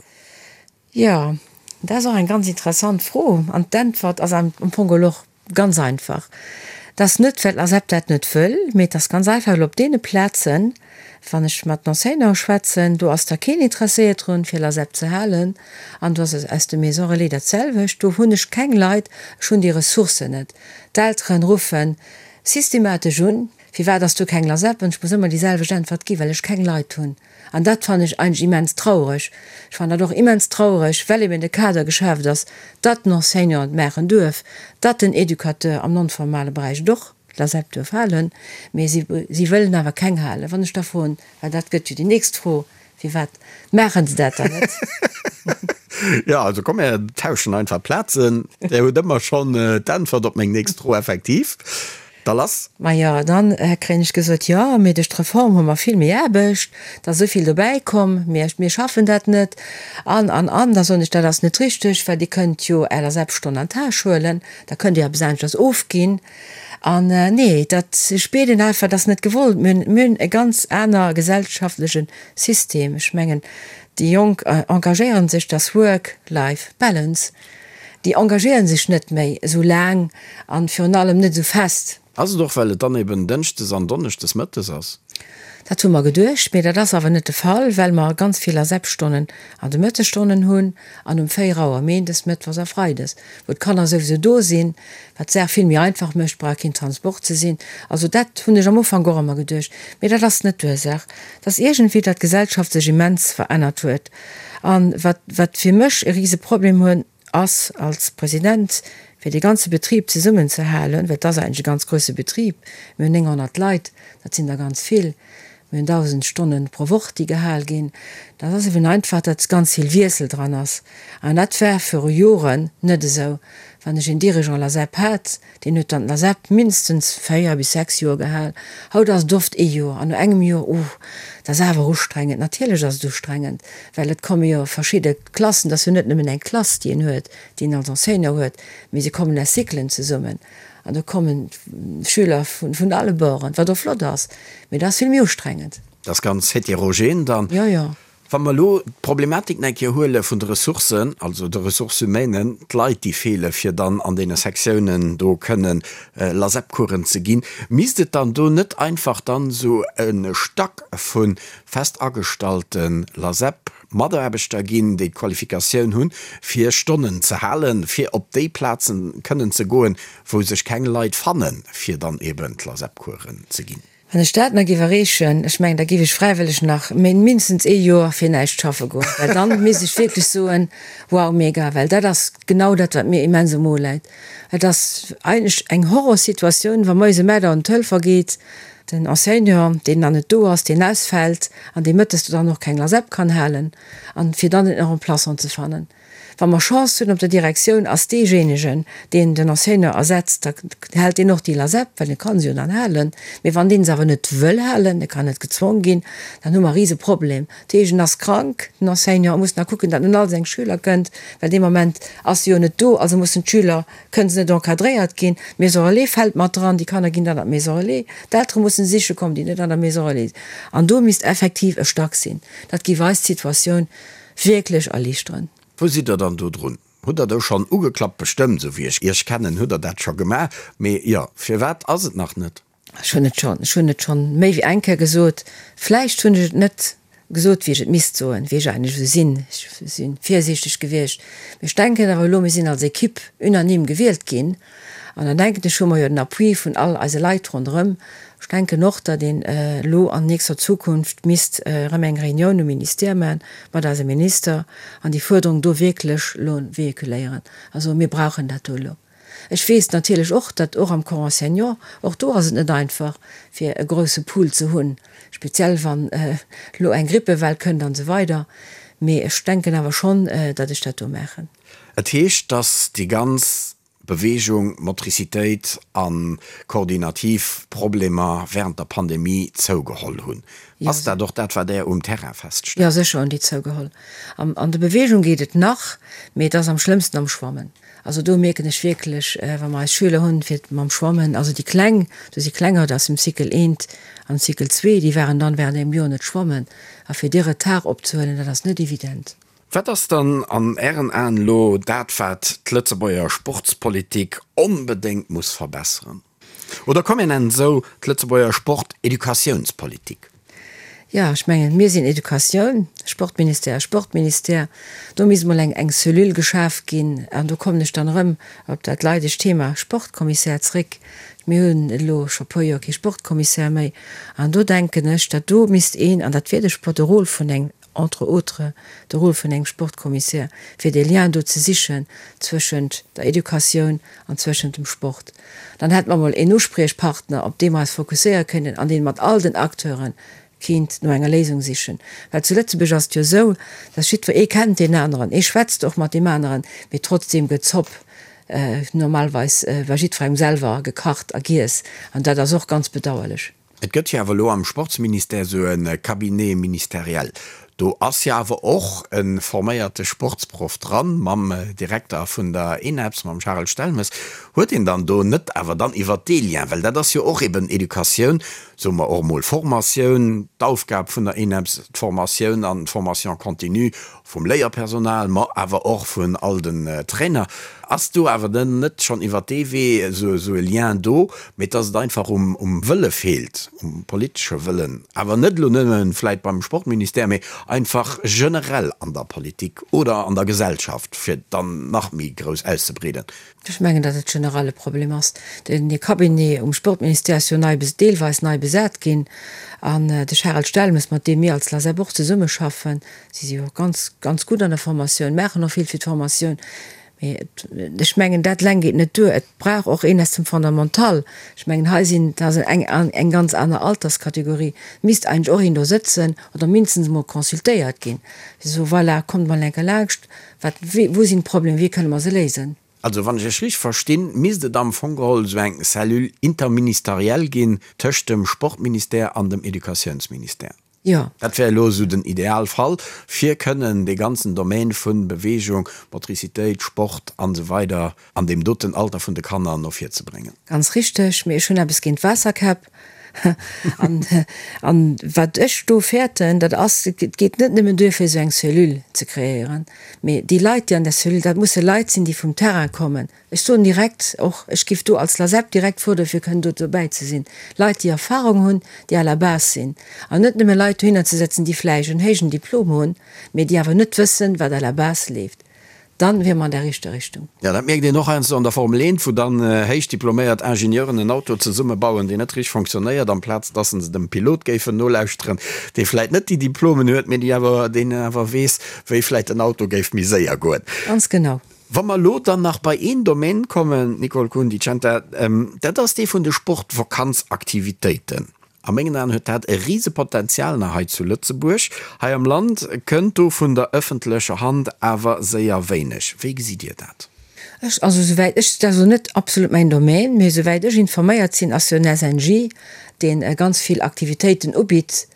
Jo, dat ass och eng ganz interessant Fro an d'Äntwert ass am Fong geholl och ganz einfach. Et ass net, well d'LASEP dat net wëll, mee et ass ganz einfach, well op deene Plazen, wann ech mat den Enseignanten schwätzen, do ass da keen interesséiert drun, fir LASEP ze halen an do ass et aus de Maisons relais dat selwecht. Do hunn ech keng Leit, ech hunn déi Ressourcen net. D'Elteren ruffe systematesch un, Firwat ass do keng LASEP? An ech muss ëmmer déi selwecht Äntwert ginn, Well ech keng Leit hunn. An dat fannen ech eigentlech immens traureg. Ech fannen dat och immens traureg, well eben de Kader geschaaft ass, datt den Enseignant et maachen duerf, datt den Educateur am non-formale Beräich et och, d'LASEP, duerf halen, mee si, si wëllen awer keng halen. Wann ech da froen, well dat gëtt jo déi nächst Fro, Firwat maachen se dat dann net? Jo, also komm, mir tauschen einfach Plazen. Dir hutt ëmmer schonn d'Äntwert op meng nächst Fro, effektiv. Da lass! Majo, dann kréien ech gesot, jo, mee duerch d'Reform hu mer vill méi Aarbecht, et ass esou vill dobäi komm, mir, mir schaffen dat net. An, an, an. Da soen ech, dat ass net richteg, well Dir kënnt jo Är LASEP-Stonn an d'Täsch huelen, da kënnt Dir eppes aneschters ofginn. An, nee, dat spiert een einfach, dat ass net gewollt. Mir hunn, mir hunn e ganz aner gesellschaftleche System. Ech mengen, déi Jonk engagéiere sech, dass Work-Life-Balance. Déi engagéieren sech net méi esou laang an virun allem net esou fest. Ass et och well et dann eben Dënschdes an Donneschdes mëttes ass? Dat hu mer geduecht, mee dat ass awer net de Fall, well mer ganz vill LASEP-Stonnen an de Mëttesstonnen hunn an um 4 Auer Méindes, Mëttwochs a Freides, wou d'Kanner souwisou do sinn, wat d'Saach vill méi einfach mécht, brauch keen Transport ze sinn. Also dat hunn ech am Ufank och ëmmer geduecht, mee dat ass net d'Ursaach. Et ass iergendwéi, datt d'Gesellschaft sech immens verännert huet. An wat, wat fir mech e rise Problem hunn, ass als President, fir dee ganze Betrib zesummenzehalen, well et ass eigentlech e ganz grouse Betrib, mir hunn 900 Leit, dat sinn der ganz vill, mir hunn 1.000 Stonne pro Woch, déi gehal ginn, dat ass eben einfach, datt ganz vill Wiessel dran ass. An dat war viru Joren net esou. Wann ech een Dirigeant LASEP hat, Deen huet dann d'LASEP mindestens 4 bis 6 Joer gehal. Haut ass et oft ee Joer an no engem Joer, oh, dat ass awer ustrengend. Natierlech ass et ustrengend, well et komme jo verschidde Klassen, et ass jo net nëmmen eng Klass, déi een huet, déi een als Enseignant huet, mee se kommen aus Cyclen zesummen an do kommen Schüler vun alle Borden, wat och flott ass, mee dat ass vill méi ustrengend. Dat ass ganz heterogen dann. Jo, jo. Wa mer elo d'Problematik nach eng Kéier huele vun de Ressourcen, also de Ressources humaines, d'Leit, déi feele fir dann an deene Sektiounen do kënnen LASEP-Coursen ze ginn, misst et dann do net einfach dann esou e Stack vu fest agestallte LASEP-Mataarbechter ginn, déi d'Qualifikatioun hunn, fir Stonnen ze halen, fir op déi Plazen kënnen ze goen, wou sech keng Leit fannen, fir dann eben d'LASEP-Coursen ze ginn? Wann ech dat nach géif erreechen, ech mengen, da géif ech fräiwëlleg nach mindestens ee Joer fir näischt schaffe goen, well dann misst ech wierklech soen, wow, mega, well dat ass genau dat, wat mir immens um Mo läit. Et ass eigentlech eng Horrorsituatioun, wa moies ëm 8 Auer den Telefon geet, den Enseignant, deen dann net do ass, deen ausfält an dee mëttes do dann och keng Lasep kann halen, an fir dann en Remplaçant ze fannen. Wa mer Chance hunn op der Direktioun, ass deejéinegen, deen den Enseignant ersetzt, da hält deen och déi Lasep, well e ka se jo dann halen. Mee wann deen se awer net wëll halen, e kann net gezwong ginn, dann hu mer e Riseproblem. Dat heescht, en ass krank, den Enseignant, e muss nach kucken, datt en un all seng Schüler kënnt, well dee Moment ass e jo net do, also mussen d'Schüler, kënne se net encadréiert ginn. D'Maison relais fält mat dran, déi Kanner ginn dann an d'Maison relais, d'Eltere mussen siche kommen, déi net an der Maison relais sinn. An do misst effektiv e Stack sinn. Dat géif eis d'Situatioun wierklech erliichteren. Wou sidd der dann do drun? Hutt der do schonn ugeklappt? Bestëmmt, esou wéi ech Iech kennen, hutt der dat scho gemaach. Mee jo, firwat ass et nach net? Ech hunn et schonn, ech hunn et schonn méi wéi eng Kéier gesot. Vläicht hunn ech et net gesot, wéi ech et misst soen, wéi ech eigentlech esou sinn. Ech si virsiichteg gewiescht. Mee ech denken awer elo, mir sinn als Equipe unanime gewielt ginn. An dann denken ech, hu mer jo den Appui vun all eise Leit ronderëm. Ech denken och, datt een elo an nächster Zukunft misst erëm eng Réunioun um Ministère maachen mat eisem Minister an déi Fuerderung do wierklech elo véhiculéieren. Also mir brauchen dat do elo. Ech weess natierlech och, datt och am Corps enseignant, och do ass et net einfach fir e grouse Pool ze hunn, speziell wann elo eng Grippewell kënnt an esou weider. Mee ech denken awer schonn, datt ech dat do maachen. Et heescht, datt déi ganz Beweegung, Motricitéit a koordinativ Problemer wärend der Pandemie zougeholl hunn. Ass dat och dat, wat Där um Terrain feststellt? Jo, sécher hunn déi zougeholl. An der Beweegung geet et nach, mee et ass am schlëmmsten am Schwammen. Also do mierken ech wierklech, wa mer eis Schüler hunn, fir mam Schwammen, also déi Kleng, do si Klenger aus dem Cycle eent an Cycle zwee, déi waren dann wärend engem Joer net schwammen. A fir dee Retard opzehuelen, dat ass net evident. Wat ass dann an Ären Aen elo dat, wat d'Lëtzebuerger Sportspolitik onbedéngt muss verbesseren? Oder komm mir nennen et esou, d'Lëtzebuerger Sporteducatiounspolitik? Jo, ech mengen, mir sinn Educatioun, Sportministère ass Sportministère. Do misst emol eng eng Cellule geschaf ginn. An do kommen ech dann erëm op dat leidegt Thema Sportkommissär zréck. Mir hunn elo scho e puer Joer kee Sportkommissär méi. An do denken ech, datt do misst een, an dat wier de Sport, de Rôle vun engem entre autres de Rôle vun engem Sportkommissär, fir dee Lien do ze sichen zwëschent der Educatioun an zwëschent dem Sport. Dann hätte mer emol een Uspriechpartner, op dee mer eis fokusséiere kënnen an dee mat all den Acteure kéint no enger Léisung sichen. Well zu Lëtzebuerg ass et jo esou, dass jiddwer ee kennt deen aneren, ee schwätzt och mat deem aneren, mee trotzdeem gëtt d'Zopp normalweis bei jiddwerengem selwer gekacht a giess an dat ass och ganz bedauerlech. Et gëtt jo awer elo am Sportsministère esou e Cabinet ministériel. Do ass jo awer och e forméierte Sportsproff dran, mam Direkter vun der ENEPS, mam Charel Stelmes. Huet een dann do net awer dann iwwert dee Lien, well dat ass jo och eben Educatioun, soe mer och emol Formatioun, d'Aufgab vun der ENEPS, d'Formatioun an d'Formation continue vum Léierpersonal, ma awer och vun all den Trainer, ass do awer dann net schonn iwwert dee Wee esou e Lien do, mee dass et einfach um Wëlle feelt, um politesche Wëllen, awer net elo nëmme vläit beim Sportministère, mee einfach generell an der Politik oder an der Gesellschaft, fir et dann nach méi grouss auszebreeden? Ech mengen, datt et generell e Problem ass. Den Cabinet um Sportministère ass jo nei, deelweis nei besat ginn. An de Charel Stelmes, mat deem mir als LASEP och zesummeschaffen, si si jo och ganz, ganz gutt an der Formatioun, maachen och vill fir d'Formatioun, mee et, ech mengen, dat eleng geet net duer. Et brauch och een aus dem Fondamental. Ech mengen, hei sinn, dat ass eng, eng ganz aner Alterskategorie, misst eigentlech och een do sëtzen oder mindestens emol consultéiert ginn, fir ze soen, voilà, kommt mol eng Kéier laanscht, Wat, wou sinn d'Problemer, wéi kënne mer se léisen? Also wann ech Iech richteg verstinn, misst et am Fong geholl esou eng Cellule interministérielle ginn tëscht dem Sportministère an dem Educatiounsministère. Jo. Dat wär elo esou den Idealfall, fir kënnen dee ganzen Domaine vu Bewegung, Motricitéit, Sport an esou weider an deem doten Alter vun de Kanner no vir ze bréngen. Ganz richteg, mee ech hunn eppes géint Waasserkäpp. An, an wat ech do fäerten, dat ass, et geet net nëmmen duer fir esou eng Cellule ze kreéieren, mee déi Leit, déi an där Cellule, dat musse Leit sinn, déi vum Terrain kommen. Ech soen direkt och, ech géif do als LASEP direkt fuerdere fir kënnen do dobäi ze sinn, Leit, déi Erfahrung hunn, déi à la base sinn, an net nëmme Leit dohinner ze setzen, déi vläicht en héijen Diplom hunn, mee déi awer net wëssen, wat à la base leeft. Dann wier mer an der richter Richtung. Jo, dat mierkt een och heiansdo an der Formel 1, wou dann héich diploméiert Ingenieuren en Auto zesummebauen, deen net richteg fonctionnéiert, amplaz dass se dem Pilot géifen nolauschteren, dee vläit net déi Diplomen huet, mee déi awer, deen awer weess, wéi vläit den Auto géif méi séier goen. Ganz genau. Wa mer elo dann nach bei een Domaine kommen, Nicole Kuhn-Di Centa, dat ass dee vun de Sportvakanzaktivitéiten. A mengen Aen huet dat e Risepotenzial nach hei zu Lëtzebuerg. Hei am Land kënnt do vun der ëffentlecher Hand awer séier wéineg. Wéi gesitt Dir dat? Ech, also souwäit ech, dat ass elo net absolut mäin Domaine, mee souwäit ech informéiert sinn, ass jo den SNJ, dee ganz vill Aktivitéiten ubitt.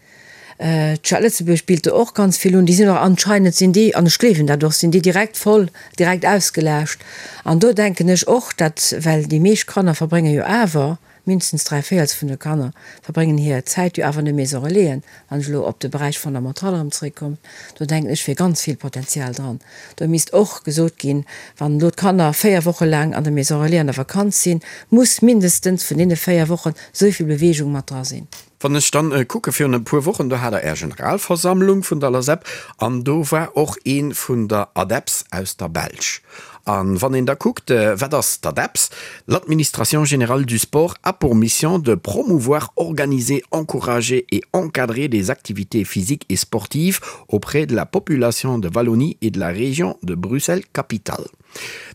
D'Stad Lëtzebuerg bilt do och ganz vill un. Déi sinn och anscheinend sinn déi, an ech gleewen dat och, sinn déi direkt voll, direkt ausgelaascht. An do denken ech och, dat, well déi meescht Kanner verbrénge jo awer, Mindestens dräivéierels vun de Kanner verbréngen hir Zäit jo awer an de Maison Relaisen. Wann ech elo op de Beräich Fondamental erëm zeréckkommen, do denken ech wier ganz vill Potenzial dran. Do misst och gesot ginn, wann elo d'Kanner 4 Woche laang an der Maison Relais an der Vakanz sinn, muss mindestens vun deene 4 Wochen esou vill Beweegung mat dra sinn. Wann ech dann kucke virun e puer Wochen, do hat der Är Generalversammlung vun der LASEP an do war och ee vun der ADEPS aus der Belsch. A wann een da kuckt, wat ass d'ADEPS? L'Administration générale du sport a pour mission de promouvoir, organiser, encourager et encadrer des activités physiques et sportives auprès de la population de Wallonie et de la région de Bruxelles-Capitale.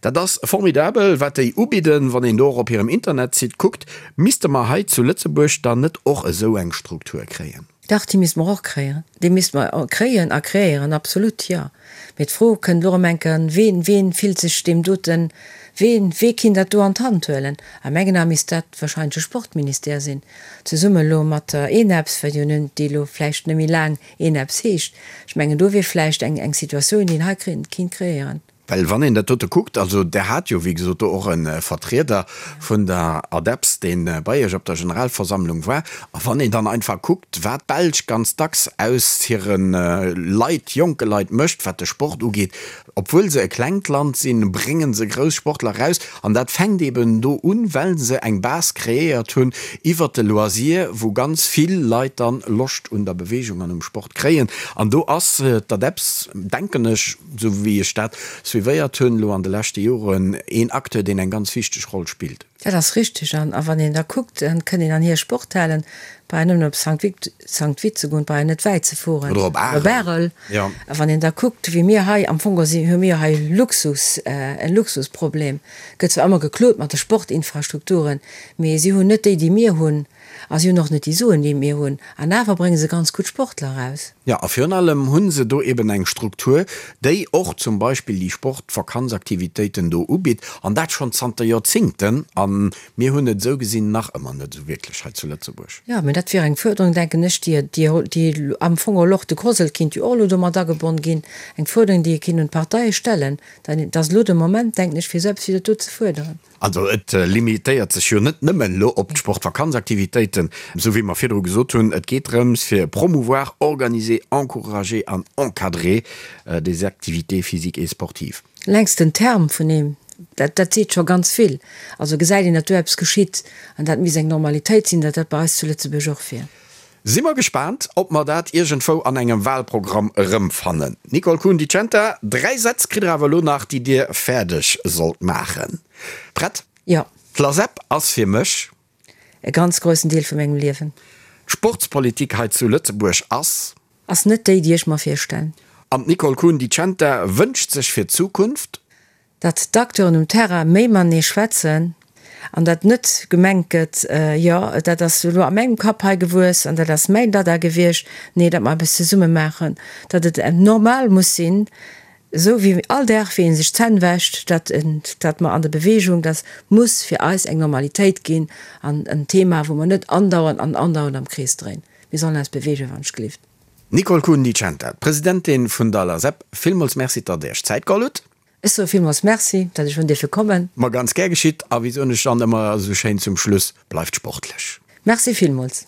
Dat ass formidabel, wat déi ubidden. Wann een do och op hirem Internetsite kuckt, misste mer hei zu Lëtzebuerg dann net och esou eng Struktur kréien? Dach, déi misste mer och kréien. Déi misste mer kréien a kreéieren, absolut, jo. Mee d'Fro kënnt elo erëm eng Kéier, Ween, ween fillt sech deem doten, ween, wee kinnt dat do an d'Hand huelen? A mengen Ae misst dat wahrscheinlech de Sportministère sinn, zesumme elo mat der ENEPS, well jo nun déi elo vläicht net méi laang ENEPS heescht. Ech mengen, do wier vläicht eng, eng Situatioun, déi een hei kinnt kreéieren. Well wann een dat dote kuckt, also Der hat jo wéi gesot do och e Vertrieder vun der ADEPS, dee bei Iech op der Generalversammlung war, a wann een dann einfach kuckt, wat d'Belsch ganz dacks aus hire Leit, jonke Leit mécht, wat de Sport ugeet, obwuel se e klengt Land sinn, brénge se grouss Sportler eraus. An dat fänkt eeben do un, well se eng Base kreéiert hunn iwwert de Loisir, wou ganz vill Leit dann Loscht un der Beweegung an um Sport kréien. An do ass d'ADEPS, denken ech, esou wéi ech dat suivéiert hunn elo an de leschte Joren, een Acteur, deen eng ganz wichteg Roll spillt. Dat ass richtig. An wann een da kuckt, dann kënnt een an hir Sporthalen, brauch een nëmmen op Sankt Vith, Sankt Vith ze goen, brauch een net wäit ze fueren. Oder op Arel. Jo. A wann een da kuckt, wéi mir hei, am Fong si hu mir hei Luxus, en Luxusproblem. Gëtt zwar ëmmer geklot mat de Sportinfrastrukturen, mee si hunn net déi, déi mir hunn. A si hunn och net déi Suen, déi mir hunn. An awer brénge se ganz gutt Sportler eraus. Jo, a virun allem hu se do eben eng Struktur, déi och zum Beispill déi Sportvakanzaktivitéiten do ubitt, an dat schonn zanter Joerzingten. A mir hunn et esou gesinn nach ëmmer net esou wierklech hei zu Lëtzebuerg. Jo, mä dat wier eng Fuerderung, denken ech, déi, déi am Fong och de COSL kinnt jo och elo domat agebonn ginn, eng Fuerderung, déi ee kinnt un d'Parteie stellen. Dat ass elo de Moment, denken ech, fir esou eppes wéi dat do ze fuerderen. Also et limitéiert sech jo net nëmmen elo op d'Sportvakanzaktivitéiten, esou wéi mer virdru gesot hunn. Et geet drëms fir promouvoir, organiser, encourager an encadrer des activités physiques et sportives. Längst den Term vun deem, dat, dat seet scho ganz vill. Also gesäit een, datt do eppes geschitt an dat misst eng Normalitéit sinn, datt dat bei eis zu Lëtzebuerg och wier. Si mer gespaant, ob mer dat iergendwou an engem Wahlprogramm erëmfannen. Nicole Kuhn-Di Centa, 3 Sätz kritt der awer elo nach, déi Dir fäerdeg sollt maachen. Prett? Jo. D'LASEP ass fir mech. E ganz groussen Deel vu mengem Liewen. D'Sportspolitik hei zu Lëtzebuerg ass. Ass net déi, déi ech mer virstellen. An d'Nicole Kuhn-Di Centa wënscht sech fir d'Zukunft. Datt d'Acteuren um Terrain méi matenee schwätzen an datt net gemengt gëtt, jo dat ass elo a mengem Kapp hei gewuess an dat ass mäin Dada gewiescht, nee, datt mer eppes zesumme maachen, datt et normal muss sinn, esou wéi all Dag wéi ee sech d'Zänn wäscht, datt datt mer an der Bewegung, datt muss fir eis eng Normalitéit ginn an en Thema wou mer net andauernd an andauernd am Krees dréinen. Mir sollen eis beweegen, wann ech gelift. Nicole Kuhn-Di Centa, d'Presidentin vun der LASEP, villmools Merci, datt Der Iech Zäit geholl hutt. Ech soe villmools Merci, datt ech hunn dierfe kommen. Ma ganz gär geschitt. A wéi soen ech dann ëmmer esou schéin zum Schluss, bleift sportlech. Merci villmools.